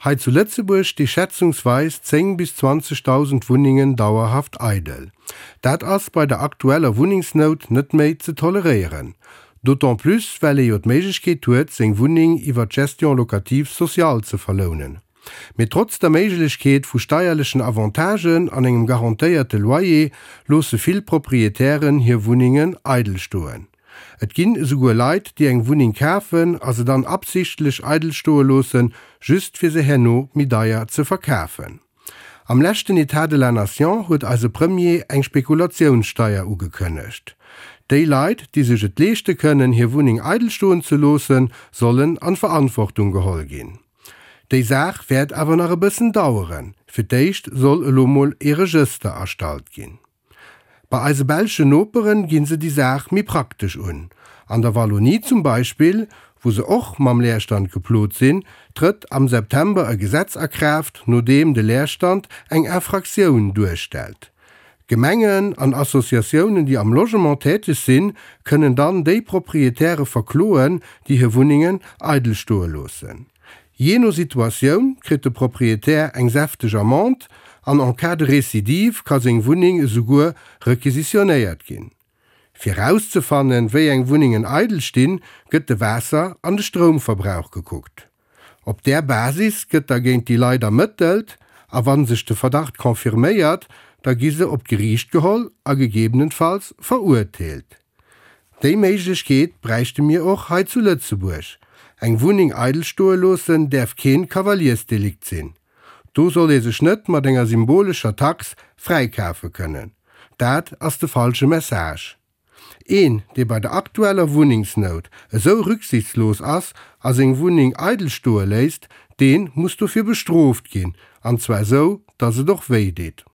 Hei zu Lëtzebuerg sti schätzungsweis 10 bis 20.000 Wunnengen dauerhaft eidel. Dat ass bei der aktueller Wunnengsnout net méi ze toleréieren. D'autant plus well ee jo d'Méiglechkeet huet, seng Wunneng iwwer d'Gestion locative sociale ze verlounen. Mee trotz der Méiglechkeet vu steierlechen Avantagen an engem garantéierte Loyer loosse vill Proprietären hir Wunnengen eidel stoen. Et ginn esouguer Leit, déi eng Wunneng kafen a se dann absichtlech eidel stoe loossen, just fir se herno méi deier ze verkafen. Am leschten Etat de la Nation huet eise Premier eng Spekulatiounssteier ugekënnegt. Déi Leit, déi sech et leeschte kënnen, hir Wunneng eidel stoen ze loossen, sollen an d'Verantwortung geholl ginn. Déi Saach wäert awer nach e bëssen daueren. Fir d'éischt soll elo mol ee Regëster erstallt ginn. Bei eise belschen Noperen ginn se déi Saach méi praktesch un. An der Wallonie zum Beispill, wou se och mam Leerstand geplot sinn, trëtt am September e Gesetz a Kraaft, no deem de Leerstand eng Infractioun duerstellt. Gemengen an Associatiounen, déi am Logement täteg sinn, kënnen dann déi Proprietäre verkloen, déi hir Wunnengen eidel stoe loossen. Jee no Situatioun kritt de Proprietär eng säfteg Amende an en cas de récidive ka seng Wunneng esouguer requisitionnéiert ginn. Fir rauszefannen, wéi eng Wunnengen eidel stinn, gëtt de Waasser an de Stroumverbrauch gekuckt. Op där Basis gëtt da géint déi Leit ermëttelt a wa sech de Verdacht confirméiert, da gi se op d'Geriicht geholl a gegebenenfalls verurteelt. Déi Méiglechkeet bräichte mir och hei zu Lëtzebuerg. Eng Wunneng eidel stoe loossen däerf keen Kavaliersdelikt sinn. Do soll ee sech net mat enger symbolescher Tax fräikafe kënnen. Dat ass de falsche Message. Een, dee bei der aktueller Wunnengsnout esou rücksichtslos ass a seng Wunneng eidel stoe léisst, dee muss dofir bestrooft ginn, an zwar esou, datt et och wéi deet.